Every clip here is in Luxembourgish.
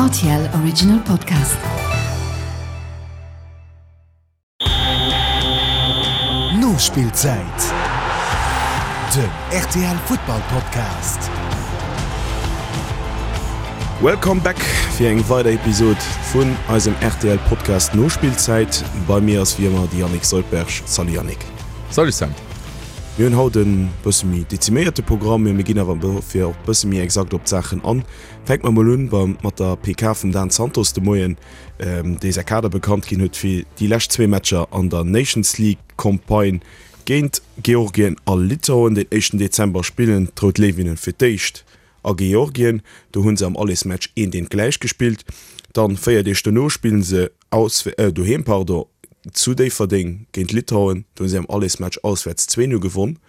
Rtl Original Podcast. Nospillzäit, den rtl Futtball Podcast. Welcome back fir eng weider Episod vun eisem rtl Podcast Nospillzäit. Bei mir ass wéi ëmmer de Yannick Soldberg. Salut Yannick. Salut Sam. Mir hunn haut en bësse méi deziméierte Programm, mee mir ginn awer dofir och bësse méi exakt op d'Saachen an. Fänke mer mol un beim mat der PK vum Dan Santos de Moien, dee säi Kader bekannt ginn huet fir déi lescht zwee Matcher an der Nations League Campagne géint Georgien a Litauen. Den éischten Dezember spillen d'Rout Léiwinnen fir d'éischt a Georgien. Do hu se am Allesmatch eent eent gläich gespillt. Dann 4 Deeg dono spillen se doheem pardon, zu Déifferdeng géint Litauen. Do hu si am Allesmatch auswäerts 2, 0 gewonn.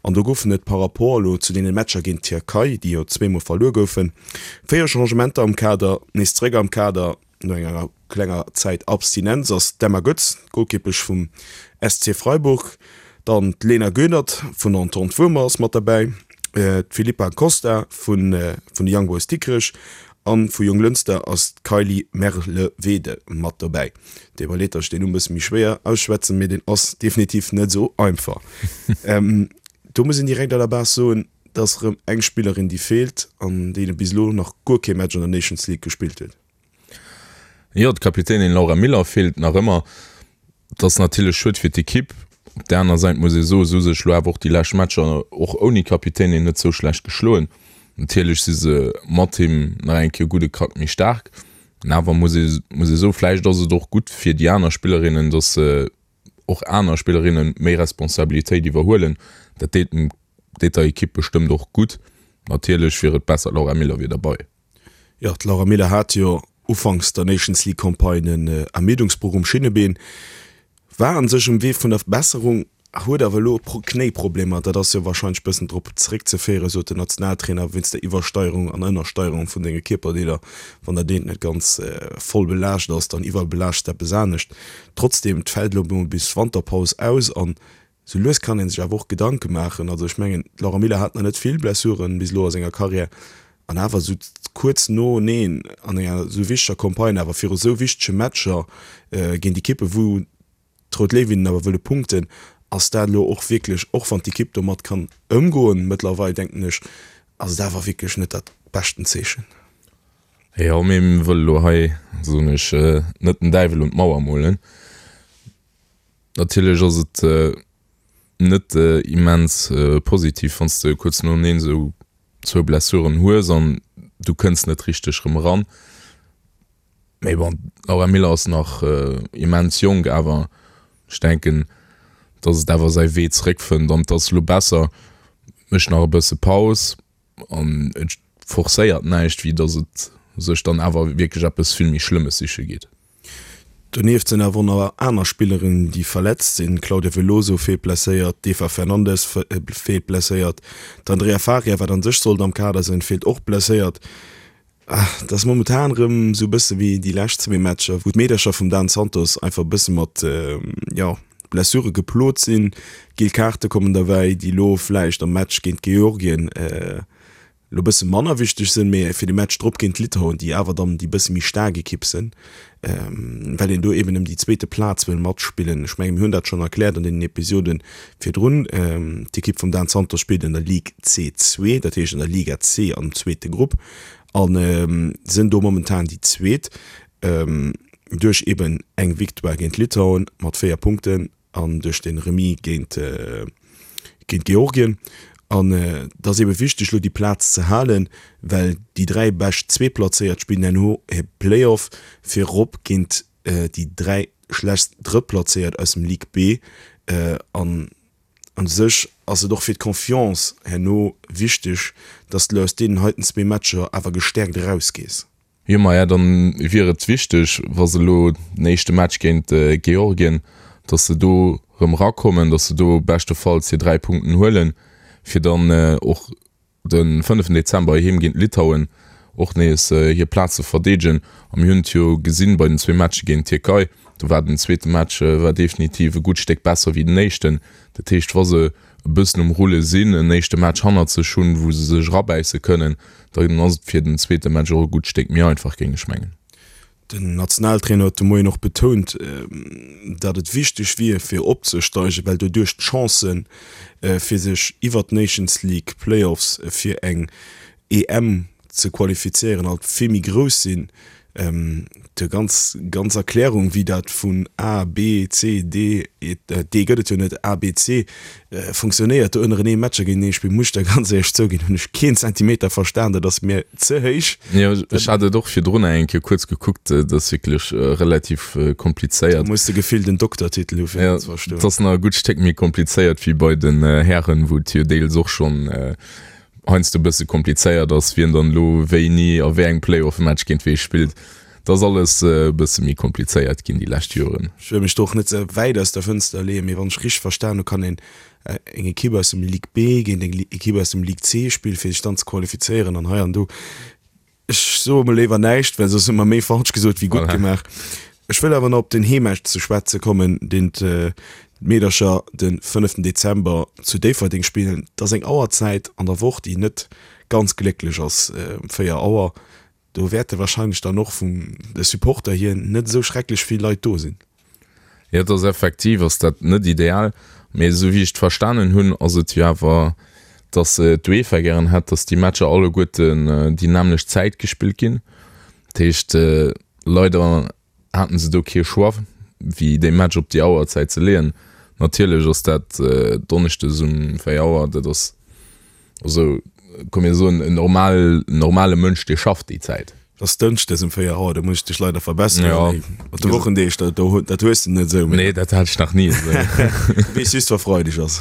An do goufen et par rapport elo zu deene Matcher géint d'Tierkei, déi jo zweemol verluer goufen, 4 Changementer am Kader. Nees zeréck am Kader no enger klenger Zäit Abstinenz ass d'Emma Goetz, d'Golkippesch vum SC Freiburg. Dann d'Lena Göhnert vun der Entente Wuermer ass mat derbäi, d'Filippa Costa vun de Young Boys Dikrech an vu Jonglënster ass d'Kylie Merlewede mat dobäi. Deet mer leed, datt ech deen Numm bësse méi schwéier ausschwätzen, mee deen ass definitiv net esou einfach. Do muss een direkt à la base soen, et ass erëm eng Spillerin, déi feelt an déi bis elo nach guer kee Match an der Nations League gespillt huet. Jo, d'Kapitänin Laura Miller feelt nach ëmmer. Et ass natierlech schued fir d'Ekipp. Op där aner Säit muss ee soen, se hu sech elo awer och déi lescht Matcher och ouni Kapitänin net sou schlecht geschloen. Natierlech si se mat him nach eng Kéier e gudde Krack méi staark. Awer muss ee muss ee soen, vläicht ass et och gutt fir déi aner Spillerinnen, datt se och aner Spillerinne méi Responsabilitéit iwwerhuelen. Dat deet dem deet der Ekipp bestëmmt och gutt. Natierlech wier et besser, d'Laura Miller wier derbei. Jo, d'Laura Miller hat jo ufanks der Nations League Campagne en Ermiddungsbroch um Schinnebeen, war an sech um Wee vun der Besserung, huet awer elo Knéiproblemer. Dat ass jo warscheinlech bëssen drop zeréckzeféieren, sot den Nationaltrainer, wéinst der Iwwersteierung an Ënnersteierung vun denge Kierperdeeler. Wann dat eent net ganz voll belaascht ass, dann iwwerbelaaschts de eppes anescht. Trotzdeem, et fält elo emol bis Wanterpaus aus an Sou lues kann ee sech awer och Gedanke maachen. Also ech mengen, d'Laura Miller hat nach net vill Blessuren bis elo a senger Karriär an awer esou kuerz noeneen an enger esou wichteger Campagne, awer viru sou wichtege Matcher géint Ekippe wou d'Rout Léiwinnen awer wëlle punkten, ass dat elo och wierklech, och wann d'Ekipp domat kann ëmgoen mëttlerweil, denken ech, ass et awer wierklech net dat beschten Zeechen. Jo, mee mir wëlle elo hei, soen ech, net den Däiwel un d'Mauer molen. Natierlech ass et net immens positiv, wann s de kuerz noeneen esou zwou Blessuren hues an du kënns net richteg erëm eran. Mee bon, d'Laura Miller ass nach immens jonk, awer ech denken, datt et awer säi Wee zeréckfënnt an et ass elo besser, mécht nach e bësse Paus. An et forcéiert näischt, wéi datt et sech dann awer wierklech eppes vill méi Schlëmmes siche geet. Donieft sinn awer och nach aner Spillerinnen, déi verletzt sinn, D'Claudia Veloso feelt blesséiert, d'Eva Fernandes feelt blesséiert, d'Andrea Faria, wat an sech sollt am Kader sinn, feelt och blesséiert. Et ass momentan erëm esou e bësse wéi déi lescht zwee Matcher, wou d'Meedercher vum Dan Santos einfach e bësse mat, jo, Blessure geplot sinn. Giel Kaarte kommen derbäi, déi elo vläicht am Match géint Georgien elo e bësse manner wichteg sinn, mee fir de Match drop géint Litauen, déi awer dann déi bësse méi staark Ekipp sinn, well een do eben ëm déi zweete Plaz wëll matspillen. Ech menge mir hunn dat schonn erkläert an deenen Episode virdrun. D'Ekipp vum Dan Santos spillt an der Ligue C2, dat heescht an der Liga C am zweete Grupp a sinn do momentan déi Zweet duerch eben eng Victoire géint Litauen mat 4 Punkten an duerch de Remis géint géint Georgien. An et ass ebe wichteg elo déi Plaz ze halen, well déi 3 bescht Zweetplazéiert spillen herno e Playoff fir erop géint déi 3 schlechtst Drëttplazéiert aus dem Ligue B. An u sech ass et och fir d'Confiance herno wichteg, dass de elo aus deenen heiten zwee Matcher awer gestäerkt erausgees. Jo, maja, dann wier et wichteg, wa se elo den éischte Match géint Georgien, dass se do erëm erakommen, dass se do beschtefalls hir 3 Punkten huelen, fir dann och de fënneften Dezember heem géint Litauen och nees hir Plaz ze verdeedegen. A mir hunn et jo gesinn bei den zwee Matche géint d'Tierkei, do war den zweete Match war definitiv e gutt Stéck besser wéi den éischten. Dat heescht, wa se. e bëssen um Rulle sinn, en éischte Match hannert sech hunn, wou se sech erabäisse kënnen, dann ass et fir den zweete Match och e gutt Stéck méi einfach, géing ech mengen. Den Nationaltrainer huet de Moien och betount, datt et wichteg wier, fir opzesteigen, well doduerch d'Chancen, fir sech iwwer d'Nations League Playoffs fir eng EM ze qualifizéieren, alt vill méi grouss sinn. Déi ganz ganz Erklärung, wéi dat vun A, B, C, D, D gëtt et jo net, A, B, C funktionéiert, do ënnerenee Matcher géintenee spillen, muss ech der ganz éierlech zouginn, hunn ech keen Zentimeter verstan, dat ass mir ze héich. Jo, ech hat et och virdrun eng Kéier kuerz gekuckt, dat ass wierklech relativ komplizéiert. Do muss de gefillt en Doktertitel hu fir dat ze verstoen. Et ass nach e gutt Stéck méi komplizéiert wéi bei den Hären, wou et jo deels och schonn heiansdo e bësse komplizéiert ass, wien dann elo wéini a wéi engem Playoff-Match géint wee spillt. Dat ass alles e bësse méi komplizéiert ginn déi lescht Joren. Ech wëll mech do och net ze wäit aus der Fënster leeën, mee wann ech richteg verstan hu, kann een eng Ekipp aus dem Ligue B géint eng Ekipp aus dem Ligue C spillen, fir sech dann ze qualifizéieren an hei an do. Ech soe mol léiwer näischt, well soss hu mer méi falsch gesot wéi gutt gemaach. Ech wëll awer nach op den Heemmatch ze schwätze kommen, deen d'Meedercher de fënneften Dezember zu Déifferdeng spillen. Et ass eng Auerzäit an der Woch, déi net ganz glécklech ass, 4 Auer. Do wäerte warscheinlech dann och vun de Supporter hier net esou schrecklech vill Leit do sinn. Jo, et ass effektiv ass dat net ideal, mee esou wéi ech et verstanen hunn, ass et jo awer, datt d'UEFA gären hätt, datt déi Matcher alleguerten déi nämmlecht Zäit gespillt ginn. Dat heescht, leider haten se do kee Choix, wéi dee Match op déi Auerzäit ze leeën. Natierlech ass dat donneschdes um 4 Auer, dat ass Also, komm mir soen, en normal, normale Mënsch, dee schafft déi Zäit. Et ass dënschdes um 4 Auer, do muss ech dech leider verbesseren. Ja. Mat de Wochendeeg, dat, do, dat hues de net esou. Nee, dat hat ech nach ni esou. Du weess just, wa Freideg ass.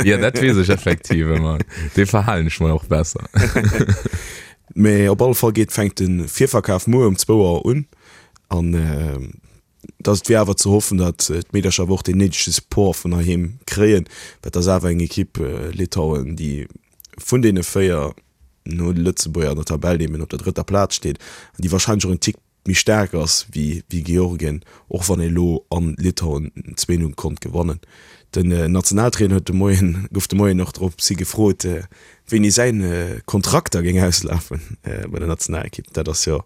Ja, dat weess ech effektiv ëmmer. Dee verhalen ech mer och besser. Mee op alle Fall geet, fänkt de Virverkaf muer um zwou Auer un. An dass et wier awer ze hoffen, datt d'Meedercher awer och deen néidege Support vun heiheem kréien, well et ass awer eng Ekipp, Litauen, déi vun deene 4 no de Lëtzebuerger an der Tabell eben op der drëtter Plaz steet an déi warscheinlech och en Tick méi staark ass wéi Georgien, och wann ee lo an Litauen 2, 0 konnt gewannen. Den Nationaltrainer huet de Moien, gouf de Moien och drops hi gefrot, wéini säin Kontrakt da géing auslafen bei der Nationalekipp. Dat ass jo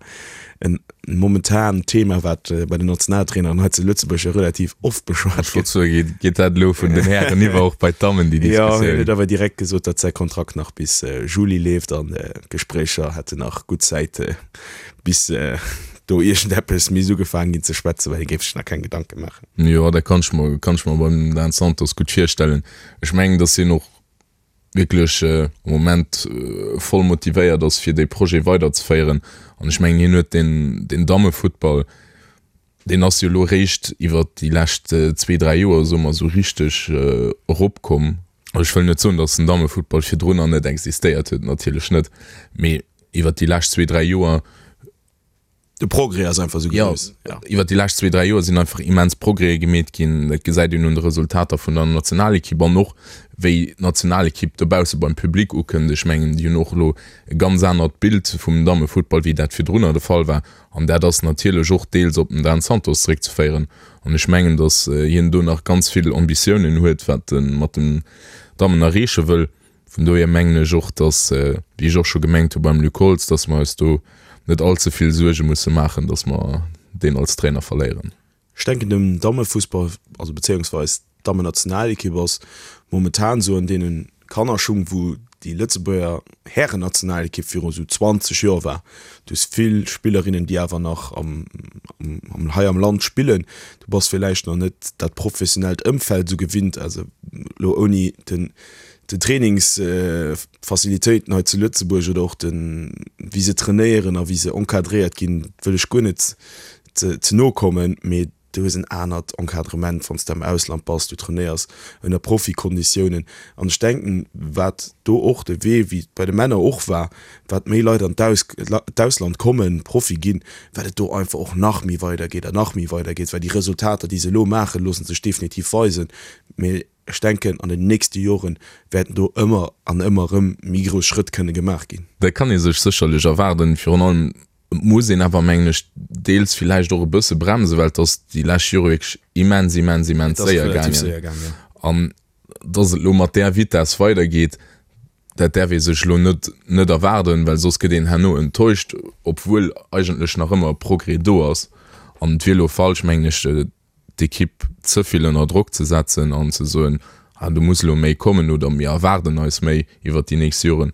en momentan Thema, wat bei den Nationaltraineren hei zu Lëtzebuerg jo relativ oft beschwat gëtt. Ech wollt soen, geet dat elo vun den Hären iwwer och bei d'Dammen, déi Diskussioun? Jo, hien huet awer direkt gesot, datt säi Kontrakt nach bis Juli leeft an d'Gespréicher hätten nach gutt Zäit, bis do iergendeppes misst ugefaangen ginn ze schwätzen, well hie géif sech nach keng Gedanke maachen. Jo, dat kann ech mer, kann ech mer beim Dan Santos gutt virstellen. Ech mengen, datt hien och wierklech am Moment voll motivéiert ass, fir dee Projet weiderzeféieren. An ech mengen, hien huet deen, deen Dammefuttball, deen ass jo elo eréischt iwwert déi lescht zwee, dräi Joer, soe mer, esou richteg eropkomm. Ech wëll net soen, datt den Dammefuttball virdrunner net existéiert huet, natierlech net, mee iwwert déi lescht zwee, dräi Joer, De Progrès ass einfach esou grouss. Jo, iwwert déi lescht zwee, dräi Joer sinn einfach immens Progrèse gemeet ginn. Dat gesäit een un de Resultater vun der Nationalekipp an och wéi d'Nationalekipp dobausse beim Public ukënnt. Ech mengen, déi hunn och elo e ganz anert Bild vum Dammefuttball, wéi dat virdrunner de Fall war. An dat ass natierlech och deels op den Dan Santos zeréckzeféieren. An ech mengen, datt hien do nach ganz vill Ambitiounen huet, wat e mat den Dammen erreeche wëll. Vun dohier mengen ech och, dass, wéi ech och scho gemengt hu beim Luc Holtz, dass mer eis do net all ze vill Suerge musse maachen, dass mer deen als Trainer verléieren. Ech denken dem Dammefussball, also bezéiungsweis d'Dammennationalekipp ass momentan esou an deene Kannerschung, wou déi Lëtzebuerger Härennationalekipp viru esou 20 Joer war. Du hues vill Spillerinnen, déi awer nach am, am, hei am Land spillen. Du bass villäicht nach net dat professionellt Ëmfeld esou gewinnt, also elo ouni den den Trainingsfacilitéiten hei zu Lëtzebuerg oder och den, wéi se trainéieren a wéi se encadréiert ginn, wëll ech guer net ze no kommen, mee du hues en anert Encadrement, wann s de am Ausland bass, du trainéiers ënner Profikonditiounen. An ech denken, wat do och de Wee, wéi et bei de Männer och war, wat méi Leit an d'Ausland kommen, Profi ginn, wat et do einfach och nach méi weidergeet an nach méi weidergeet, well déi Resultater, déi se elo maachen, loosse sech definitiv weisen. Mee Ech denken, an den nächste Joren wäerten do ëmmer an ëmmer erëm méi grouss Schrëtt kënne gemaach ginn. Dat kann ee sech sécherlech erwaarden. Virun allem muss een awer, mengen ech, deels villäicht och e bësse bremsen, well et ass déi lescht Jore wierklech immens, immens, immens séier gaangen. An. Dass et elo mat där Vitess weidergeet, dat däerf ee sech elo net net erwaarden, well soss gëtt een herno enttäuscht, obwuel eigentlech nach ëmmer e Progrès do ass. An et wier elo falsch, mengen ech, d'Ekipp ze vill ënner Drock ze setzen an ze soen, ah do muss elo méi kommen oder mir erwaarden eis méi iwwert déi nächst Joren.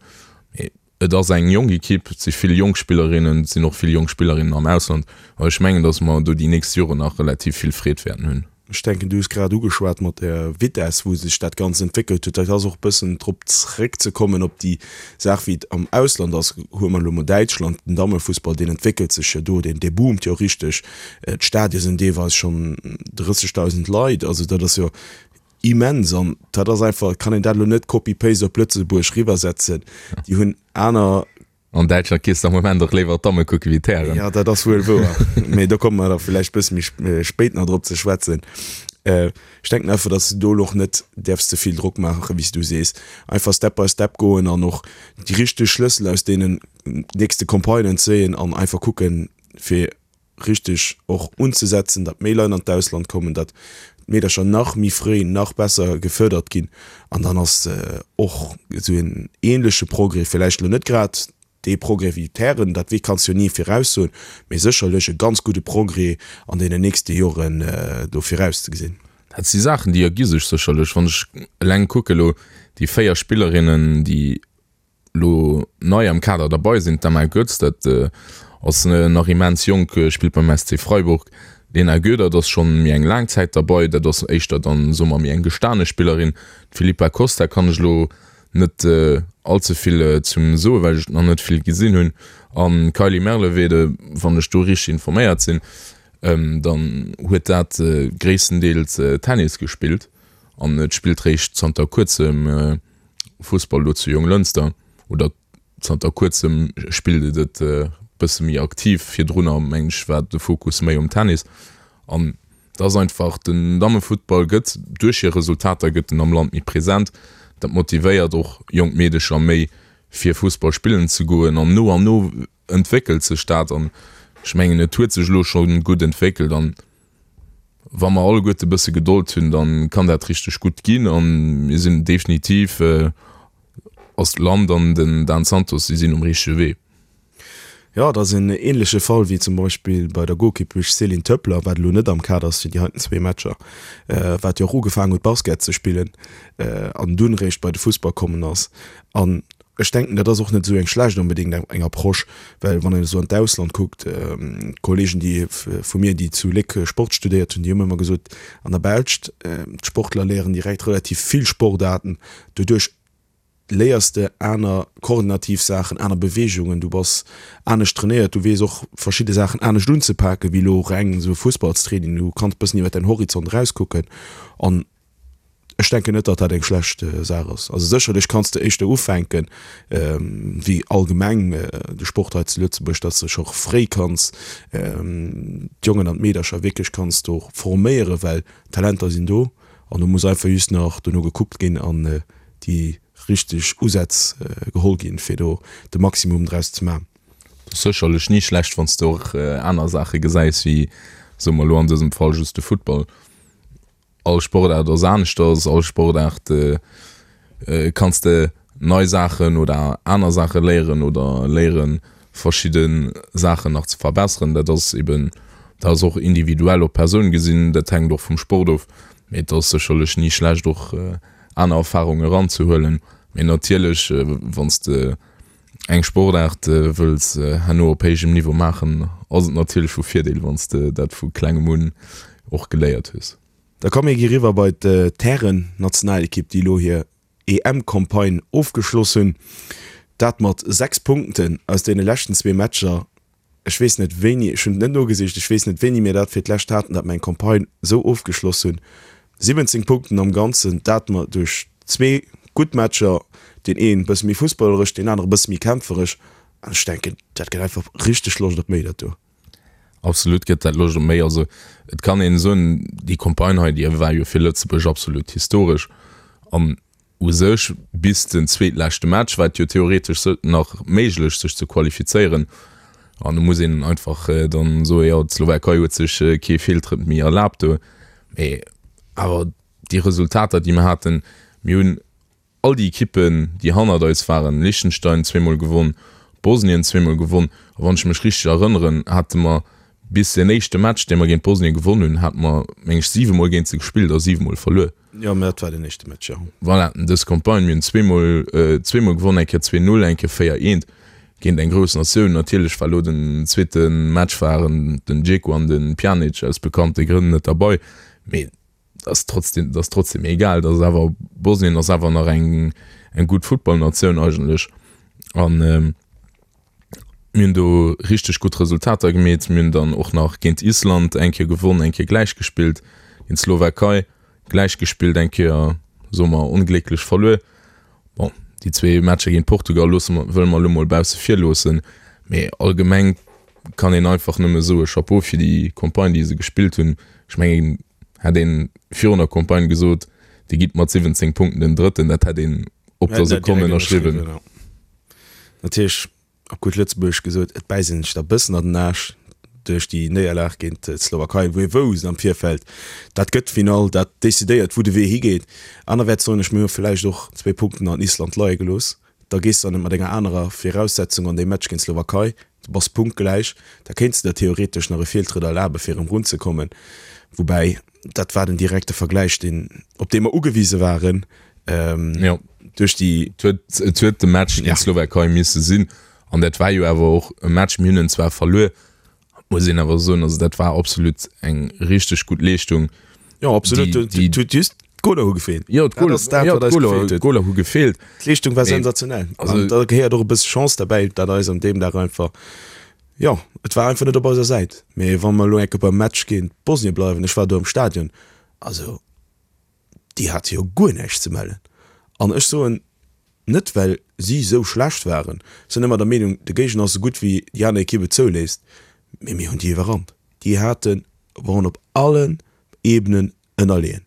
Mee Et ass eng jonk Ekipp, et si vill jonk Spillerinnen, et sinn och vill jonk Spillerinnen am Ausland. An ech mengen, datt mer do déi nächst Joren nach relativ vill Freed wäerten hunn. Ech denken, du hues grad ugeschwat mat der Vitess, wou sech dat Ganzt entwéckelt huet. Dat ass och e bëssen drop zréckzekommen op déi Saach, wéi et am Ausland ass. Huele mer elo mol Däitschland, den Dammefussball, deen entwéckelt sech jo do, deen, dee boomt jo richteg. D'Stadie sinn deelweis schonn 30.000 Leit. Also dat ass jo Immens an dat ass einfach, kann een dat elo net copy-paste op Lëtzebuerg riwwersetzen. Déi hunn aner. An Däitschland gees de am Moment och léiwer d'Damme kucke wéi d'Hären. Jo, dat ass wuel wouer, mee do komme mer da villäicht bësse méi spéit nach drop ze schwätzen. Ech denken einfach, datt s de do elo och net däerfs ze vill Drock maachen, wéi s du sees. Einfach Step by Step goen an och déi richteg Schlëssel aus deenen nächste Campagnen zéien an einfach kucken, fir richteg och unzesetzen, datt méi Leit an d'Ausland kommen, datt d'Meedercher nach méi fréi, nach besser gefördert ginn an dann ass och esou en ähnleche Progrès, villäicht elo net grad dee Progrès wéi d'Hären, dat wee kanns jo ni viraussoen, mee sécherlech e ganz gudde Progrès an deenen nächste Joren do virauszegesinn. Dat si Saachen, déi ergi sech sécherlech. Wann ech eleng kucke elo déi 4 Spillerinnen, déi Lo nei am Kader derbei sinn d'Emma Goetz, dat ass nach immens jonk, spillt beim SC Freiburg. D'Lena Goedert ass schonn méi eng laang Zäit derbei, dat ass éischter dann, soe mer, méi eng gestane Spillerin. D'Filippa Costa kann ech elo net all ze vill zum soen, well ech nach net vill gesinn hunn. An d'Kylie Merlevede, wann ech do richteg informéiert sinn, dann huet dat gréisstendeels Tennis gespillt an et spillt réischt zanter kuerzem Fussball elo zu Jonglënster, oder zanter kuerzem spillt et et e bësse méi aktiv. Virdrunner mengen ech war de Fokus méi um Tennis. An et ass einfach, den Dammefuttball gëtt duerch hir Resultater gëtt en am Land méi present. Dat motivéiert och jonk Meedecher méi fir Fussball spillen ze goen an no an no entwéckelt sech dat an ech mengen et huet sech elo scho gutt entwéckelt an wa mer alleguerte e bësse Gedold hunn, da kann dat richteg gutt ginn an mir sinn definitiv ass d'Land an den Dan Santos, si sinn um richtege Wee. Jo, et ass en ähnleche Fall wéi zum Beispill bei der Golkippesch Céline Töppler, wat elo net am Kader ass fir déi heiten zwee Matcher, wat jo och ugefaangen huet Basket ze spillen an dunn réischt bei de Fussball kommen ass. An Ech denken, dat ass och net esou eng schlecht onbedéngt eng Approche, well wann een esou an d'Ausland kuckt, d'Kollegen, déi vu mir, déi zu Léck Sport studéiert hunn, déi hunn ëmmer gesot, an der Belscht, d'Sportler léieren direkt relativ vill Sportaarten, doduerch léiers de aner koordinativ Saachen, aner Beweegungen, du bass anescht trainéiert, du weess och verschidde Saachen anescht unzepaken, wéi elo reng esou e Fussballstraining. Du kanns e bëssen iwwer däin Horizont erauskucken an Ech denken net, datt dat eng schlecht Saach ass. Also sécherlech kanns de éischter ufänken, wéi allgemeng de Sport hei zu Lëtzebuerg, datt s de scho fréi kanns d'Jongen an d'Meedercher wierklech kanns do forméieren, well d'Talenter sinn do an do muss einfach just nach dono gekuckt ginn an déi richteg Usätz geholl ginn, fir do de Maximum draus ze maachen. Et ass sécherlech ni schlecht, wann s de och aner Saache gesäis wéi, soe mer elo an dësem Fall, just de Futtball. All Sportaart ass aneschters, all Sportaart kanns de nei Saachen oder aner Saache léieren oder léieren verschidde Saachen nach ze verbesseren. Dat ass eben, dat ass och individuell op d'Persoun gesinn, dat hänkt och vum Sport of, mee et ass sécherlech ni schlecht och aner Erfarunge eranzehuelen. Mee natierlech wann s de eng Sportaart wëlls herno op héijem Niveau maachen, ass et natierlech vu Virdeel, wann s de dat vu klengem un och geléiert hues. Da komm mir gi riwwer bei d'Hären-Nationalekipp, déi elo hir EM-Campagne ofgeschloss hunn. Dat mat 6 Punkten aus deene leschten zwee Matcher. Ech weess net wéini, ech hunn et net nogesicht, ech weess net wéini mir dat fir d'lescht haten, datt mer eng Campagne esou ofgeschloss hunn. 17 Punkten am Ganzen, dat mer duerch zwee gutt Matcher, deen een e bësse méi fussballeresch, deen anere e bësse méi kämpferesch. An ech denken, dat gëtt einfach richteg Loscht op méi, dat do. Absolut gëtt dat Loscht op méi. Also et kann een soen, déi Campagne hei, déi war jo fir Lëtzebuerg absolut historesch. An U sech bis den zweetleschte Match war et jo theoretesch nach méiglech sech ze qualifizéieren an do muss een einfach dann soen, jo d'Slowakei huet sech kee Feeltrëtt méi erlaabt do. Mee awer déi Resultater déi mer haten, Mir hunn all déi Ekippen, déi hannert eis waren, Liechtenstein zweemol gewonn, Bosnien zweemol gewonn a wann ech mech richteg erënneren, hate mer bis deen éischte Match, dee mer géint Bosnien gewonn hunn, hate mer, meng ech, siwemol géint se gespillt a siwemol verluer. Jo, mä dat war den éischte Match, jo. Voilà, dës Campagne, mir hunn zweemol, zweemol gewonn, eng Kéier 2, 0, eng Kéier 4, 1 géint eng grouss Natioun. Natierlech war elo den zweete Match waren den Dzeko an de Pjanic aus bekannte Grënn net derbei, mee ass trotzdem, ass trotzdem egal, dat ass awer, Bosnien ass awer nach eng, eng gutt Futtballnatioun eigentlech an mir hunn do richteg gutt Resultater gemeet. Mir hunn dann och nach géint Island eng Kéier gewonn, eng Kéier gläich gespillt, géint d'Slowakei gläich gespillt, eng Kéier, soe mer, onglécklech verluer. Bon, déi zwee Matcher géint Portugal loosse mer, wëlle mer elo mol bausse vir loossen, mee allgemeng kann een einfach nëmme soe Chapeau fir déi Campagne, déi se gespillt hunn. Ech mengen, hätt ee virun der Campagne gesot, Dir gitt mat 17 Punkten den Drëtten, dat hätt een op der Sekonn ënnerschriwwen. Natierlech, op gutt Lëtzebuergesch gesot, et bäisst een sech da bëssen an den Aarsch duerch déi Néierlag géint d'Slowakei, wou ee wousst am Virfeld, dat gëtt d'Finall, dat decidéiert, wou de Wee higeet. Anerwäerts soen ech, mir hu vläicht och zwéi Punkten an Island leie gelooss. Da gees de dann net mat enger anerer Viraussetzung an dee Match géint d'Slowakei, du bass punktgläich, da kéints de der theoretesch nach e Feeltrëtt erlabe fir erëm runzekommen. Woubäi, dat war den direkte Vergläich, deen, op dee mer ugewise waren, duerch déi. Et huet, et huet de Match géint d'Slowakei misse sinn an dat war jo awer och e Match, mir hunn en zwar verluer, Muss een awer soen, also dat war absolut eng richteg gutt Leeschtung. Jo, absolut. Déi, déi, Huet just d'Goler hu gefeelt. Jo, d'Goler, dat, wat eis gefeelt huet. D'Goler hu gefeelt. D'Leeschtung war sensationell. Also, da gehéiert och e bësse Chance derbäi, dat eis an deem Dag einfach, jo, et war einfach net op eiser Säit. Mee wa mer elo eng Kéier beim Match géint Bosnien bleiwen, ech war do am Stadion, also déi hate jo guer näischt ze mellen. An ech soen, net well si esou schlecht waren, ech sinn ëmmer der Meenung, de Géigner ass esou gutt wéi déi aner Ekipp et zouléisst, mee mir hunn déi iwwerrannt. Déi haten, waren op allen Ebenen ënnerleeën.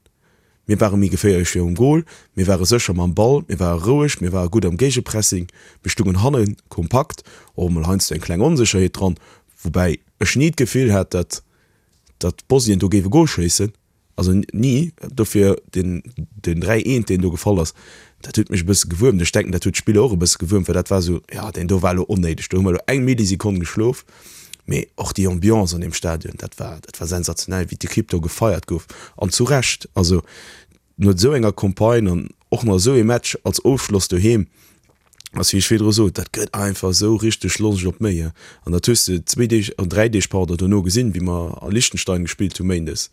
Mir ware méi geféierlech virum Gol, mir ware sécher mam Ball, mir ware roueg, mir ware gutt am Géigepressing, mir stungen hanne kompakt, och emol heiansdo eng kleng Onsécherheet dran, woubäi ech ni d'Gefill hat, datt datt Bosnien do géif e Gol schéissen. Also ni. Dofir deen den 3 eent deen do gefall ass, dat huet mech e bësse gewuermt. Ech denken dat huet d'Spiller och e bësse gewuermt, well dat war esou, jo deen do war elo onnéideg, do hu mer elo eng Millisekonn geschlof. Mee och déi Ambiance an deem Stadion, dat war dat war sensationell, wéi d'Ekipp do gefeiert gouf an zu Recht. Also no esou enger Campagne an och nach esou ee Match als Ofschloss doheem, ass wéi ech virdru sot, dat gëtt einfach esou richteg Loscht op méi. An dat hues de zwéi Deeg, an dräi Deeg, pardon, dono gesinn, wéi mer a Liechtenstein gespillt hu méindes.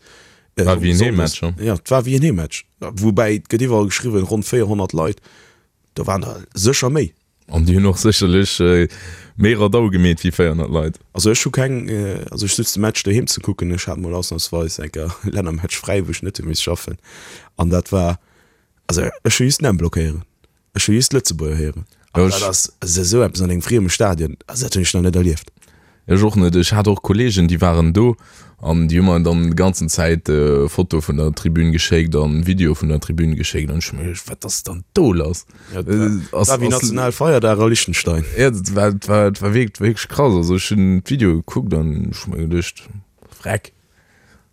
War wéi en Heemmatch, jo. Jo, et war wéi en Heemmatch. Woubäi, et gëtt iwwerall geschriwwen, ronn 400 Leit, do waren der sécher méi. An déi hunn och sécherlech méi Radau gemeet wéi 400 Leit. Also ech hu keng, also ech sutz de Match doheem ze kucken. Ech hat mol ausnamsweis eng Kéier Lännermatch fräi, wou ech net hu misst schaffen. An dat war, also ech hu just den blockéieren. Ech hu just Lëtzebuerger héieren. An dat ass esou eppes an engem frieme Stadion, also dat hunn ech nach net erlieft. Ech och net. Ech hat och Kollegen, déi waren do an déi hu mer dann déi ganzen Zäit Fotoe vun der Tribün geschéckt an Videoe vun der Tribün geschéckt an ech hu mer geduecht, wat ass dann do lass? Dat war wéi Nationalfeierdag a Liechtenstein. Jo, dat war, dat war, dat war wierklech krass. Also ech hunn d'Videoe gekuckt an ech hu mer geduecht, Vreck.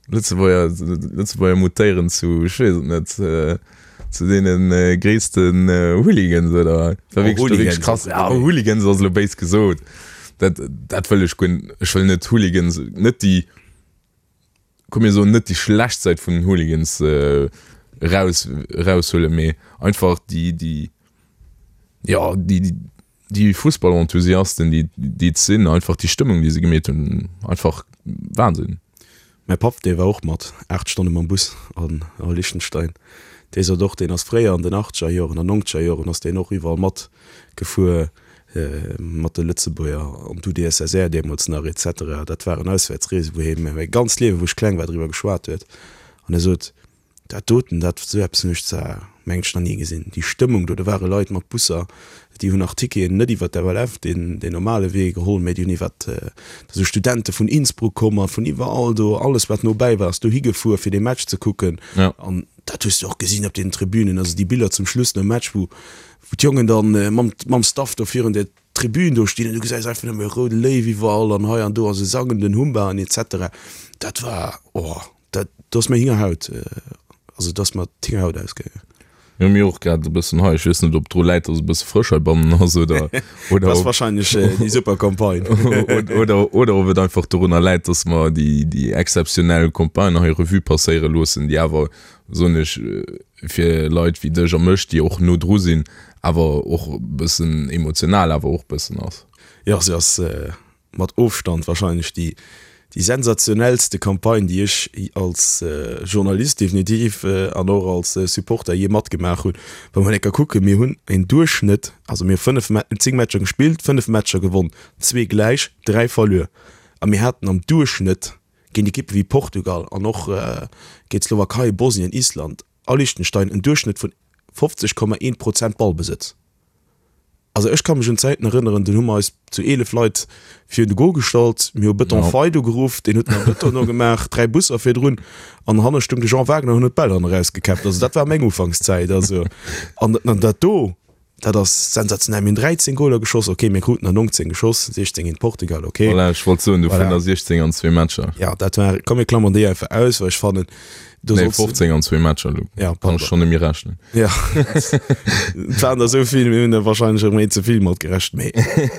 Lëtzebuerger, Lëtzebuerger mutéieren zu, ech weess et net, zu deene gréissten Hooligans oder wat? War wierklech, war wierklech krass. Ja, Hooligans ass elo béis gesot. Dat, dat wëll ech guer, ech wëll net Hooligans, net déi, komm mir soen, net déi schlecht Säit vun den Hooligans eraus, eraushuelen, mee einfach déi, déi, jo, déi, déi, Déi Fussballenthusiasten déi déi et sinn, einfach déi Stëmmung déi se gemeet hunn, einfach Wahnsinn. Mäi Papp dee war och mat 8 Stonne mam Bus an a Liechtenstein. Dee sot och, deen ass fréier an den achtzeger Joren an nongzeger Joren ass deen och iwwerall mat gefuer mat de Lëtzebuerger an d'UdSSR deemools nach et cetera. Dat waren Auswäertsreesen wou hie mir mäi ganzt Liewe wou ech kleng war driwwer geschwat huet an e sot, Dat doten, dat, esou eppes hunn ech zwar, mengen ech, nach ni gesinn. Déi Stëmmung do, do ware Leit mat Busser, déi hunn nach Ticketen net iwwert d'FLF, deen, deen normale Wee geholl, mä déi hunn iwwert, da si Studente vun Innsbruck komm a vun iwwerall do, alles wat nobäi war ass dohi gefuer fir dee Match ze kucken. An dat hues de och gesinn op den Tribünen, also déi Biller zum Schluss nom Match, wou, wou d'Jongen dann mam, mam Staff do virun der Tribün do stinn an du gesäis einfach nëmme roude Léiw iwwerall an hei an do a se sangen den Humba an et cetera. Dat war, oh. Dat, do ass mir Hingerhaut, also do ass mer d'Hingerhaut ausgaangen. Jo, mir och grad e bëssen hei. Ech weess net, ob dru läit, dass e bësse frësch heibannen ass oder, oder Das wahrscheinlech äh, déi super Campagne. oder, oder ob et einfach dorunner läit, dass mer déi, déi exzeptionell Campagne hei Revue passéiere loossen, déi awer, soen ech, fir Leit wéi dech a mech, déi och no dru sinn, awer och e bëssen emotional awer och bëssen ass. Jo, se ass äh, mat Ofstand wahrscheinlech déi déi sensationellste Campagne, déi ech als Journalist definitiv an och als Supporter jee matgemaach hunn. Wa mer enker kucken, mir hunn en Duerchschnëtt, also mir hu 5, 10 Matcher gespillt, 5 Matcher gewonn, zwee gläich, 3 verluer a mir haten am Duerchschnëtt géint Ekippe wéi Portugal an och géint d'Slowakei, Bosnien, Island a Liechtenstein en Duerchschnëtt vun 50,1 Prozent Ballbesëtz. Also ech ka mech un Zäiten erënneren, dunn hu mer eis zu 11 Leit virun de Goal gestallt, mir hu Bëton Fei do geruff, deen huet nach Bëton no gemaach, 3 Busser virdrun an hanne stung de Jean Wagner an huet d'Bäll hanne rausgekäppt. Also dat war meng Ufankszäit. Also an an dat do, dat ass sensationell. Mir hunn 13 Goaler geschoss, okay, mir kruten der 19 geschoss, 16 géint Portugal, okay. Voilà, ech wollt soen, dovunner voilà. 16 an zwee Matcher. Ja, dat war, komm mir klammern déi einfach aus, well ech fannen, do nee, 15 an zwee Matcher, du ja, kann ech schon net méi rechnen. Ja, et waren der esou vill, mir hunn der wahrscheinlech erëm een ze vill matgerechent, mee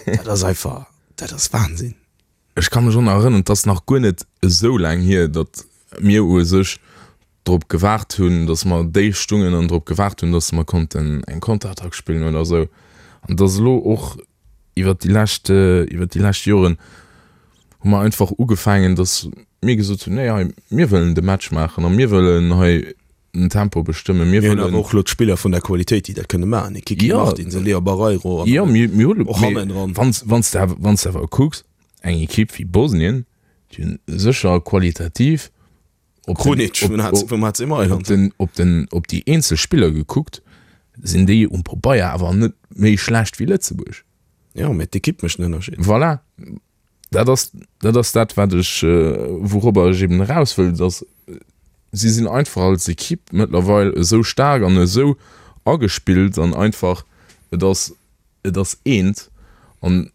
dat ass einfach, dat ass Wahnsinn. Ech ka mech och nach erënneren, et ass nach guer net esou laang hier, datt mir u sech drop gewaart hunn, datt mer déif stungen an drop gewaart hunn, datt mer konnten eng Konterattack spillen oder esou. An datt elo och iwwert déi lescht, iwwert déi lescht Joren hu mer einfach ugefaangen, datt mir gesot hunn, nee hei, mir wëllen de Match maachen a mir wëllen hei den Tempo bestëmmen. Mir hunn awer och elo d'Spiller vun der Qualitéit, déi dat kënne maachen, e Kiki Martins, e Leo Barreiro an och hannendran. Wann s de awer kucks, eng Ekipp wéi Bosnien, déi hunn sécher qualitativ op den, op den, op déi eenzel Spiller gekuckt, sinn déi um Pabeier awer net méi schlecht wéi Lëtzebuerg. Jo, mä d'Ekipp mécht den Ënnerscheed. Voilà, dat ass, dat ass dat, wat ech, wourobber ech eben eraus wëll, dass si sinn einfach als Ekipp mëttlerweil esou staark an esou agespillt an einfach, et ass, et ass eent an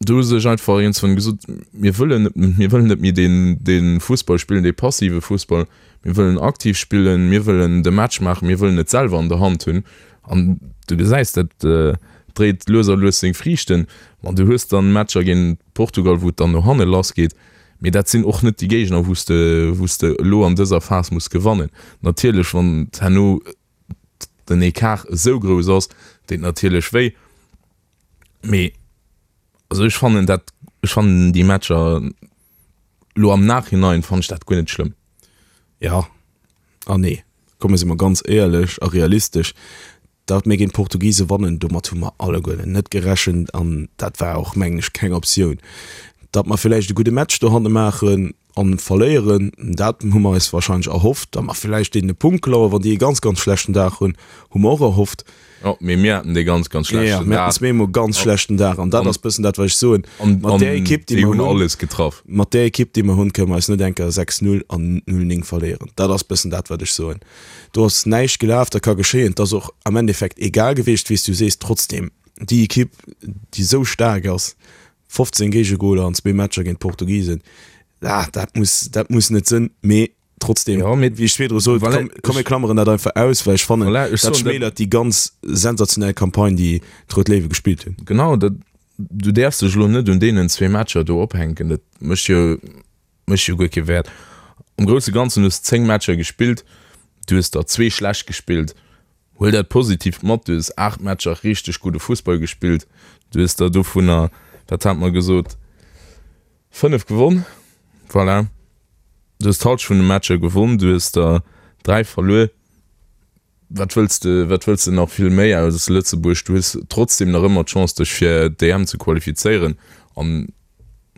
Do hu sech einfach iergendswann gesot, mir wëllen net, mir wëllen net méi deen, dee Fussball spillen, dee passive Fussball, mir wëllen aktiv spillen, mir wëllen de Match maachen, mir wëllen et selwer an der Hand hunn. An du gesäis, dat dréit lues a lues seng Friichten. Ma du hues dann Matcher géint Portugal, wou et dann no hanne lassgeet, mee dat sinn och net déi Géigner, wou s de, wou s de elo an dëser Phas muss gewannen. Natierlech, wann herno den Ecart esou grouss ass, deet natierlech wéi. Mee also ech fannen dat, ech fannen déi Matcher lo am Nachhinein fannen ech dat guer net schlëmm. Ja an nee. Komm mir si mer ganz éierlech a realistesch, datt mir géint d'Portugise wannen, domat hu mer alleguerten net gerechent an dat war och mengen ech keng Optioun. Datt mer villäicht e gudde Match dohanne maachen, An verléieren, dat hu mer eis wahrscheinlech erhofft. Datt mer villäicht deenen e Punkt klauen, wann déi e ganz, ganz schlechten Dag hunn, hu mer och erhofft. Jo, mee mir haten dee ganz, ganz schlechten Dag. Jo, mir haten zweemol e ganz schlechten Dag. An dat ass bëssen dat, wat ech soen. Mat där Ekipp, déi mer hunn. Alles getraff. Mat där Ekipp, déi mer hunn, kënne mer eis net eng Kéier 6, 0 an 0, 9 verléieren. Dat ass bëssen dat, wat ech soen. Do ass näischt gelaf, dat ka geschéien. Et ass och am Endeffekt egal gewiescht, wéi s du sees. Trotzdem, déi Ekipp, déi esou staark ass, 15 Géigegoler an zwee Matcher géint d'Portugisen, ah, dat muss, dat muss net sënn, mee trotzdem, ja, mee, wéi ech virdru sot, voilà, komm, komm mir klammeren dat einfach aus, well ech fannen, voilà, ech dat soen, schmälert déi ganz sensationell Campagne, déi d'Rout Léiwe gespillt hunn. Genau, dat, du däerfs dech elo net un deenen zwee Matcher do ophänken, dat mécht jo, mécht jo guer kee Wäert. Am grousse Ganzen hues 10 Matcher gespillt, du hues der zwee schlecht gespillt, Huel dat Positiivt mat, du hues 8 Matcher richteg gudde Fussball gespillt, du hues der dovunner, wat hat mer gesot, 5 gewonn, voilà, du hues d'Halschent vun de Matcher gewonn, du hues der 3 verluer. Wat wëlls de, wat wëlls de nach vill méi aus Lëtzebuerg? Du hues trotzdeem nach ëmmer d'Chance dech fir d'EM ze qualifizéieren an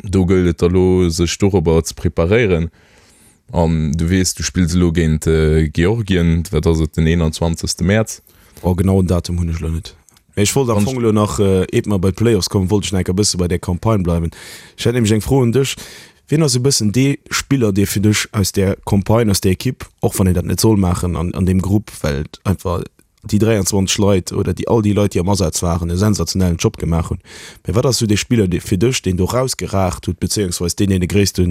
do gëllt et da lo sech dorobber ze preparéieren. An du weess, du spills elo géint Georgien, wat ass et, den 21. Mäerz? Oh, genauen Datum hunn ech elo net. Mee ech wollt am Fong elo nach, eet mer bei d'Playoffs kommen, wollt ech nach enker e bësse bei där Campagne bleiwen. Ech hätt nämlech eng Fro un dech, Wien ass e bëssen dee Spiller, dee fir dech aus där Campagne, aus där Ekipp, och wann een dat net soll maachen an an deem Grupp, well et einfach déi 23 Leit oder déi all déi Leit, déi am Asaz waren, e sensationellen Job gemaach hunn. Mä wat ass esou dee Spiller dee fir dech, deen do rausgeragt huet, bezéiungsweis deen, deen de gréisste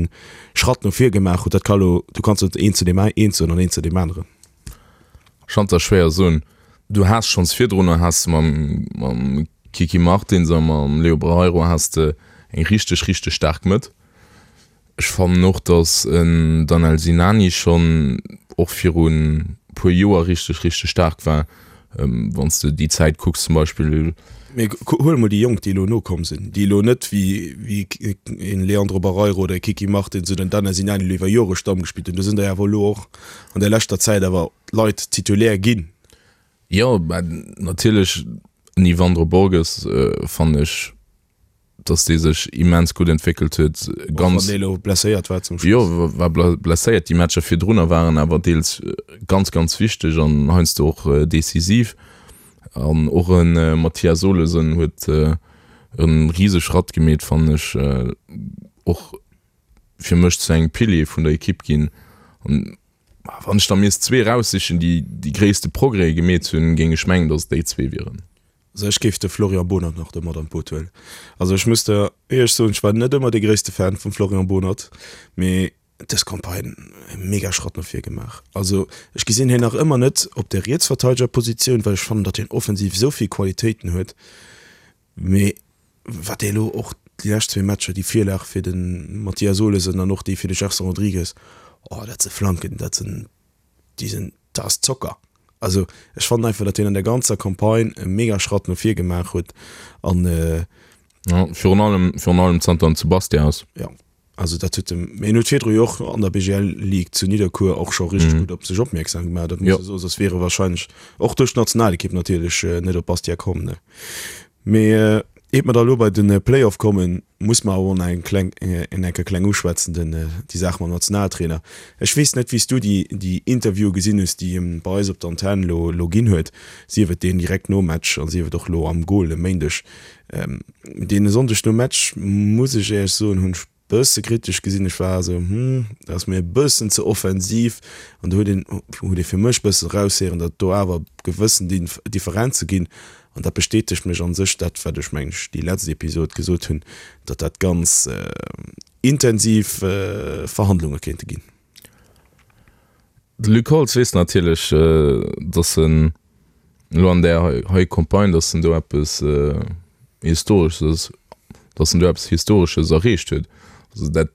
Schratt no vir gemaach huet? Dat ka lo, du kanns net een zu deem een soen an een zu deem aneren. Ech kann et der schwéier soen. Du has schonns virdrunner has de mam mam Kiki Martins a mam Leo Barreiro has de eng richteg richteg staark Mëtt. Ech fannen och, datt en Danel Sinani schonn och virun puer Joer richteg richteg staark war. Wann s de déi Zäit kucks zum Beispill. Mee huel emol déi Jonk, déi elo nokomm sinn, déi elo net wéi wéi en Leandro Barreiro oder e Kiki Martins oder en Danel Sinani elo iwwer Jore Stamm gespillt hunn. Do sinn der jo awer elo och an der leschter Zäit awer Leit Titulaire ginn. Jo, mä natierlech en Yvandro Borges fannen ech, datt dee sech immens gutt entwéckelt huet. Och wann dee elo blesséiert war zum Schluss. Jo, war blesséiert. Déi Matcher virdrunner waren awer deels ganz, ganz wichteg an heiansdo och decisiv. An och e Mathias Olesen huet e rise Schratt gemeet, fannen ech, och fir mech zu engem Pilier vun der Ekipp ginn. An wann ech da misst zwee eraussichen, déi déi gréisste Progrèse gemeet hunn, géing ech mengen, datt et déi zwee wieren. Also ech géif de Florian Bohnert nach do mat an d'Boot huelen. Also ech muss der éierlech soen, ech war net ëmmer dee gréisste Fan vum Florian Bohnert, mee dës Campagne e mega Schratt no vir gemaach. Also ech gesinn hien nach ëmmer net op der Rietsverteidegerpositioun, well ech fannen, datt hien offensiv esou vill Qualitéiten huet, Mee wat déi elo och déi lescht zwee Matcher, déi Virlag fir de Mathias Olesen an och déi fir de Gerson Rodrigues, oh dat se Flanken, dat sinn, déi sinn, dat ass Zocker. Also ech fannen einfach, datt hien an der ganzer Campagne e mega Schratt no vir gemaach huet an. Jo, virun allem, virun allem zanter en zu Bastia ass. Jo. Also dat huet dem, mee en huet virdru jo och an der BGL Ligue zu Nidderkuer och scho richteg gutt op sech opmierksam gemaach, dat muss ee soen, soss wier e wahrscheinlech och duerch d'Nationalekipp natierlech net op Bastia komm, ne. Mee iert mer da elo bei de Playoff kommen, muss mer awer och nach eng kleng, en enker kleng uschwätzen, den, déi Saach mam Nationaltrainer. Ech weess net, wéi s du déi, déi Interviewe gesinn hues, déi e bei eis op der Antenn elo, elo ginn huet, sief et deen direkt nom Match a sief et och elo am Goal e Méindeg. Deen e Sonndeg nom Match, muss ech éierlech soen, hunn ech bësse kritesch gesinn. Ech war esou, hm, dat ass mir e bëssen ze offensiv. An do huet een, huet ee fir mech bëssen eraushéieren, datt do awer gewëssen Differenze ginn. An dat bestätegt mech an sech dat, wat ech, mengen ech, déi letzt Episod gesot hunn, datt dat ganz intensiv Verhandlunge kéinte ginn. De Luc Holtz weess natierlech, datt en elo an där hei Campagne, datt en do eppes Historesches, datt en do eppes Historesches erreecht huet. Also dat,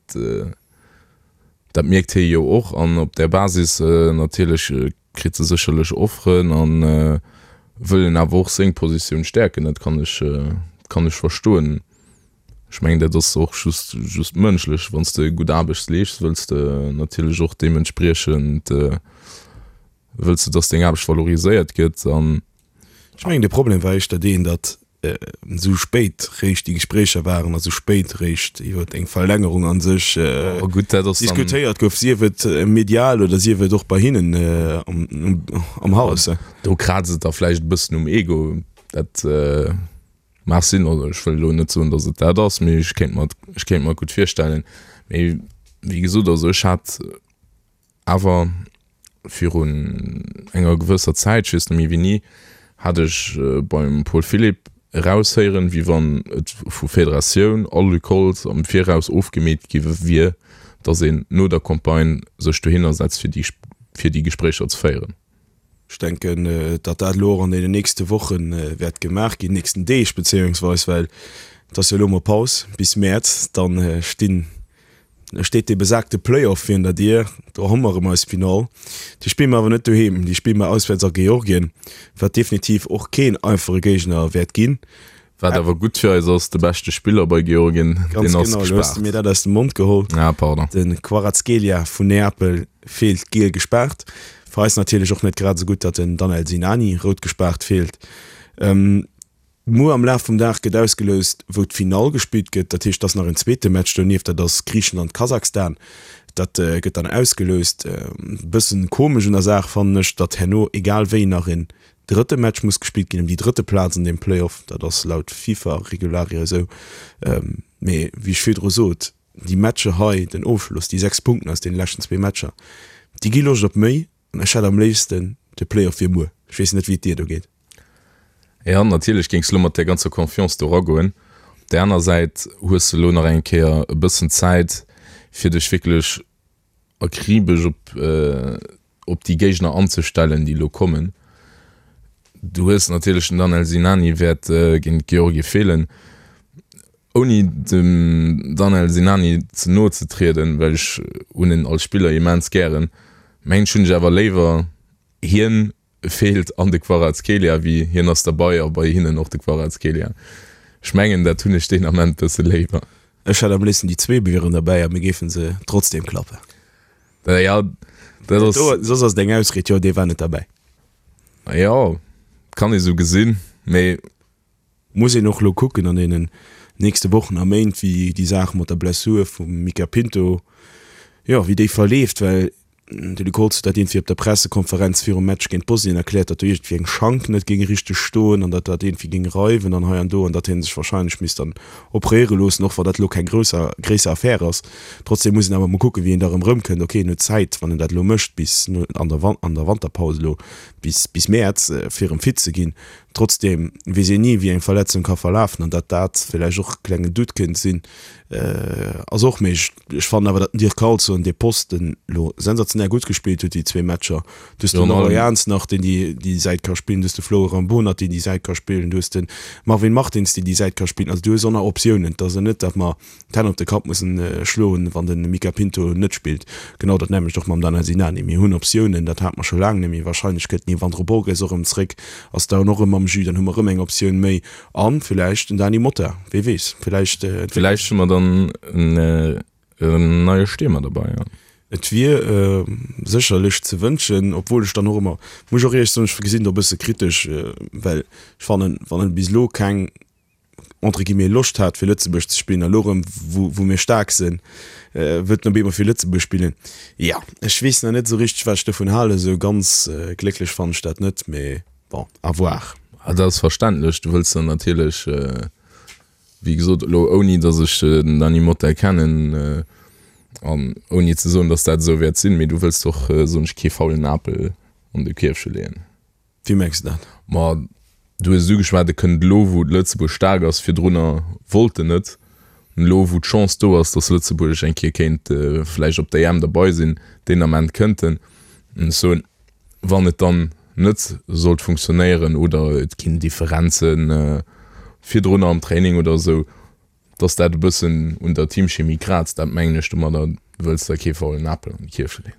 dat mierkt hie jo och an op där Basis natierlech kritt e sécherlech Offeren a wëll en awer och seng Positioun stäerken. Dat kann ech, kann ech verstoen. Ech mengen, dat ass och just, just mënschlech. Wann s de gutt Aarbecht leeschts, wëlls de natierlech och deementspriechend, wëlls de, dass deng Aarbecht valoriséiert gëtt an. Ech mengen, de Problem war éischter deen, datt esou spéit réischt déi Gespréicher waren a sou spéit réischt iwwer eng Verlängerung a sech diskutéiert gouf, sief et medial oder sief et och bei hinnen am Haus. Do kraazt et da vläicht e bëssen um Ego. Dat. Mag sinn, also ech wëll elo net soen, datt et dat ass, mee ech kéint mer, ech kéint mer gutt virstellen. Mee wéi gesot, also ech hat awer virun enger gewësser Zäit, ech weess net méi wéini, hat ech beim Paul Philipp eraushéieren, wéi wann et vu Federatioun a Luc Holtz am Viraus ofgemeet gi wier, datt een no der Campagne sech dohinner setzt, fir déi, fir déi Gespréicher ze féieren. Ech denken, datt dat elo och an deenen nächste Woche wäert gemaach ginn, nächsten Deeg bezéiungsweis, well et ass jo elo emol Paus bis Mäerz. Dann stinn, steet dee besagte Playoff virun der Dier. Do hu mer erëm eis Finall. Déi spille mer awer net doheem, déi spille mer auswäerts a Georgien, wat definitiv och keen einfache Géigner wäert ginn. Wat awer gutt fir eis ass, de beschte Spiller bei Georgien, deen ass gespaart. Ganz genau, elo hues de mir dat aus dem Mond geholl. Ah, pardon. De Kvaratskhelia vun Neapel feelt giel gespaart. Fir eis natierlech och net grad esou gutt, datt den Danel Sinani rout gespaart feelt. Muer am Laf vum Dag gëtt ausgeloust, wou d'Finall gespillt gëtt. Dat heescht, et ass nach en zweete Match donieft, dat ass Griichenland-Kasachstan. Dat gëtt dann ausgeloust. E bëssen komesch un der Saach fannen ech, datt herno egal wéi nach en Drëtte Match muss gespillt ginn ëm déi drëtte Plaz an deem Playoff. Dat ass laut FIFA-Regularie esou. Mee wéi ech virdru sot, déi Matcher hei, den Ofschloss, déi 6 Punkten aus deene leschten zwee Matcher, déi gi Loscht op méi. An ech hätt am léifsten, de Playoff wier muer. Ech weess net, wéi et dir do geet. Jo, natierlech géings de lo mat där ganzer Confiance do eragoen. Op där aner Säit hues de lo nach eng Kéier e bëssen Zäit, fir dech wierklech akribesch op. op déi Géigner anzestellen, déi elo kommen. Du hues natierlech den Danel Sinani wäert géint Georgie feelen. Ouni dem Danel Sinani ze no ze trieden, well ech hunn en als Spiller immens gären, mengen ech hunn ech awer léiwer hien feelt an de Kvaratskhelia wéi hien ass derbei a bei hinnen och de Kvaratskhelia. Ech mengen dat hunn ech deen Ament bësse léiwer. Ech hätt am léifsten déi zwee wieren derbäi a mir géifen se trotzdem klappen. Jo, dat ass. Soss ass et eng Ausried, jo dee war net derbäi. Jo, kann ee sou gesinn, mee. Muss een och elo kucken an deenen nächste Wochen a Méint, wéi déi Saach mat der Blessur vum Mica Pinto, jo, wéi déi verleeft, well de Luc Holtz huet dat iergendwéi op der Pressekonferenz virum Match géint Bosnien erkläert, datt do iergendwéi eng Schank net géing richteg stoen an datt dat iergendwéi géing reiwen an hei an do an datt hie sech warscheinlech misst dann operéiere loossen, och wann dat elo keng grousser, gréisser Affär ass. Trotzdem muss een awer mol kucken, wéi en da erëm erëmkënnt. Ok, en huet Zäit, wann en dat elo mécht, bis an der an der Wanterpaus elo bis bis Mäerz, fir erëm fit ze ginn. Trotzdem weess een ni, wéi eng Verletzung ka verlafen an datt dat villäicht och e klengen Doute kéint sinn, ass och méiglech. Ech fannen awer, datt den Dirk Carlson dee Posten elo sensationell gutt gespillt huet, déi zwee Matcher. Du hues den Leroy Jans nach, deen déi déi Säit ka spillen, du hues de Florent Bonert, deen déi Säit ka spillen, du hues de Marvin Martins, deen déi Säit ka spillen. Also du hues och nach Optiounen. Et ass jo net, datt mer d'Hänn op de Kapp mussen schloen, wann de Mica Pinto net spillt. Genau dat nämmlecht och mam Danel Sinani. Mir hunn Optiounen, dat hate mer scho laang net méi. Wahrscheinlech kënnt den Yvandro Borges och erëm zréck, ass dann och erëm am Jus, dann hu mer erëm eng Optioun méi. A villäicht den Dany Motta, wee weess, villäicht entwéckelt. Villäicht hu mer dann en neie Stiermer derbei, jo. Et wier sécherlech ze wënschen, obwuel ech dann och ëmmer, muss ech och éierlech soen, ech gesinn do e bësse kritesch, well ech fannen, wann en bis elo keng entre guillemets Loscht hat fir Lëtzebuerg ze spillen a lo rëm wou wou mir staark sinn, wëllt en op eemol fir Lëtzebuerg spillen. Jo, ech weess nach net esou richteg wat ech dovun halen, esou ganz glécklech fannen ech dat net, mee bon, à voir. Ah, dat ass verständlech, du wëlls dann natierlech, wéi gesot, elo ouni datt ech den Dany Motta kennen an ouni ze soen, datt dat esou wäert sinn, mee du wëlls och, soen ech, kee faulen Apel an de Kierfche leeën. Wéi mengs de dat? Ma du hues et ugeschwat, e kënnt elo wou Lëtzebuerg staark ass, virdrunner wollt en net. An elo wou d'Chance do ass, datt Lëtzebuerg eng Kéier kéint vläicht op der EM derbei sinn, deen Ament kënnt en. An ech soen, wann et dann net sollt funktionéieren oder et ginn Differenze virdrunner am Training oder esou, datt dat e bëssen un der Teamchemie kraazt, dat mengen ech domadder, du wëlls der kee faulen Apel an d'Kierfche leeën.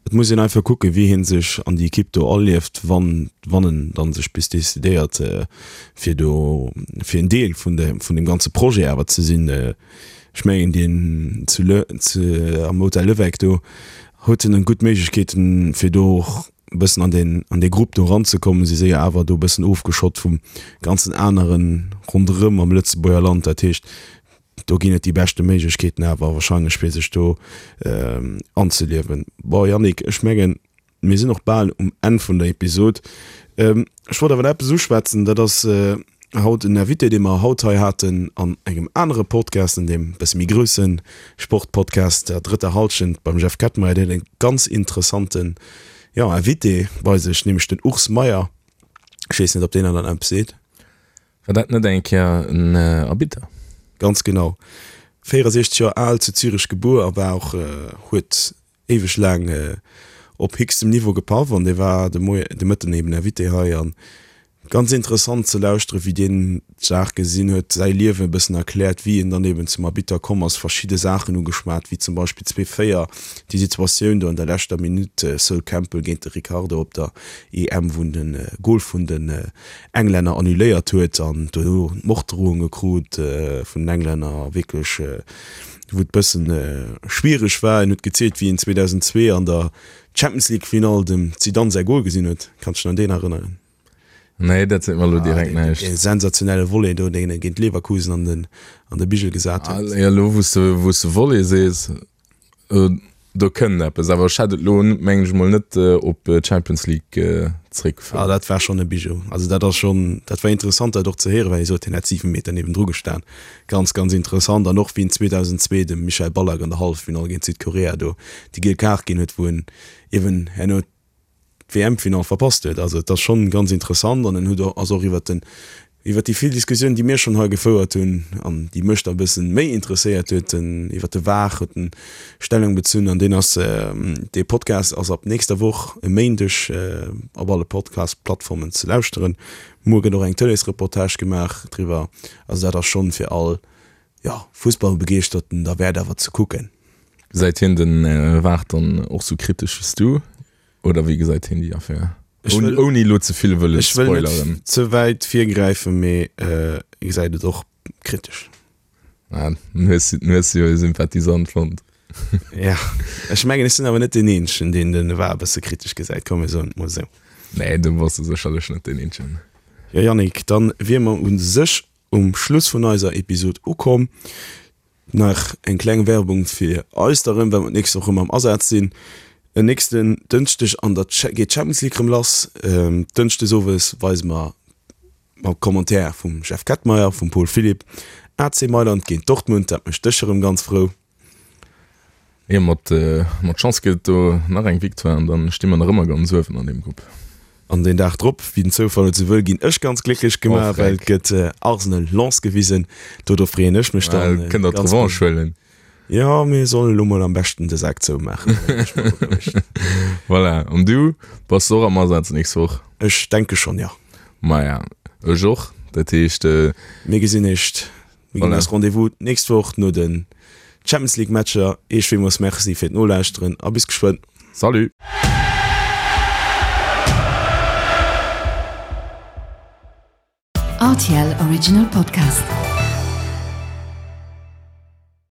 Et muss een einfach kucken, wéi hie sech an déi Ekipp do alieft, wann, wann en dann sech bis decidéiert, fir do, fir en Deel vun de, vun deem ganze Projet awer ze sinn. Ech mengen, deen zu Le, zu, am Hotel Levecq do huet en gutt Méiglechkeeten, fir do och e bëssen an deen, an dee Grupp do eranzekommen. Si si jo awer do e bëssen ofgeschott vum ganzen anere ronderëm am Lëtzebuerger Land. Dat heescht, Do ginn et déi beschte Méiglechkeeten awer wahrscheinlech fir sech do anzeliewen. Bon Yannick, ech mengen mir sinn och bal um Enn vun der Episod. Ech wollt awer nach eppes uschwätzen, dat ass haut en Invité dee mer haut hei haten an engem anere Podcast, an deem bësse méi grousse Sportpodcast der drëtter Hallschent beim Jeff Kettmeyer. Deen huet e ganz interessanten, jo, Invité bei sech, nämlech den Urs Meier. Ech weess net ob deen der dann eppes seet. War dat net eng Kéier en Arbitter? Ganz genau. 64 Joer al, zu Zürech gebuer a war och, huet éiweg laang op héchstem Niveau gepaff an dee war de Moie, de Mëtten eben Invité hei an ganz interessant ze lauschteren, wéi deen d'Saach gesinn huet, säi Liewen e bëssen erkläert, wéi en dann eben zum Arbitter komm ass, verschidde Saachen ugeschwat, wéi zum Beispill 2004 déi Situatioun do an der leschter Minutt, Sol Campbell géint de Ricardo op der EM, wou en de Gol vun den Englänner annuléiert huet an dono Morddrohunge krut vun den Englänner, wierklech wou et bëssen schwiereg war. En huet gezielt wéi en 2002 an der Champions League Finall dem Zidane säi Gol gesinn huet. Kanns dech nach un deen erënneren? Nee, dat seet mer elo direkt näischt. Dee sensationelle Volley do, deen e géint Leverkusen an den an de Bigel gesat huet. Ah, jo, elo wou s de wou s de Volley sees, Do kënnt eppes, awer ech hätt et elo, mengen ech mol, net op d'Champions League zréckgefouert. Ah, dat war schonn e Bijou. Also dat ass schonn, dat war interessant dat och ze héieren, well hie sot, hien hätt 7 Meter niewendru gestan. Ganz, ganz interessant. An och wéi en 2002 dem Michael Ballack an der Halleffinall géint Südkorea do déi giel Kaart ginn huet, wou en eeben herno d'WM-Finall verpasst huet. Also et ass schonn ganz interessant an en huet och, ass och iwwert den. Iwwer déi vill Diskussiounen, déi mir schonn hei gefouert hunn an déi mech da e bëssen méi interesséiert huet, den iwwer de VAR huet en Stellung bezunn an deen ass, dee Podcast ass ab nächster Woch e Méindeg op alle Podcast-Plattformen ze lauschteren. Muer gëtt och eng Tëleesreportage gemaach driwwer. Also dat ass schonn fir all, jo, Fussballbegeeschterten derwäert awer ze kucken. Gesäit hien den VAR dann och sou kritesch wéi s du oder wéi gesäit hien déi Affär? Ech wëll, Ouni elo ze vill wëllen ech wëll net spoileren. ze wäit virgräifen, mee e gesäit et och kritesch. Ah, dann hues du, dann hues du jo e Sympathisant fonnt. Ja, ech mengen, ech sinn awer net deen Eenzegen, deen den VAR e bësse kritesch gesäit, komm mir soen et mol esou. Nee, do bass du sécherlech net deen Eenzegen. Jo Yannick, dann wier mer u sech um Schluss vun eiser Episod ukomm. Nach eng kleng Werbung fir eis da rëm, well mer d'nächst Woch rëm am Asaz sinn. En nächsten Dënschdeg an der geet d'Champions League rëm lass. Dënschdes owes weise mer mam Commentaire vum Jeff Kettmeyer, vum Paul Philipp, AC Mailand géint Dortmund. Dat mécht dech erëm ganz frou. Jo, mat mat Chance gëtt et do nach eng Victoire an dann sti mer nach ëmmer ganz uewen an deem Grupp. An deen Dag drop, wéi den Zoufall et sou wëll, ginn ech ganz glécklech gemaach, well et gëtt Arsenal Lens gewisen. Do do freeën ech mech dann. Kënnt der d'Revanche huelen. Jo, mir sollen elo mol am beschten de Sak zoumaachen. Voilà, an du, bass de och am Asaz nächst Woch? Ech denke schonn, jo. Maja, ech och. Dat heescht. Mir gesinn eech Mir ginn eis Rendez-vous d'nächst Woch no den Champions League Matcher. Iech villmools Merci fir d'Nolauschteren a bis geschwënn. Salut! RTL Original Podcast.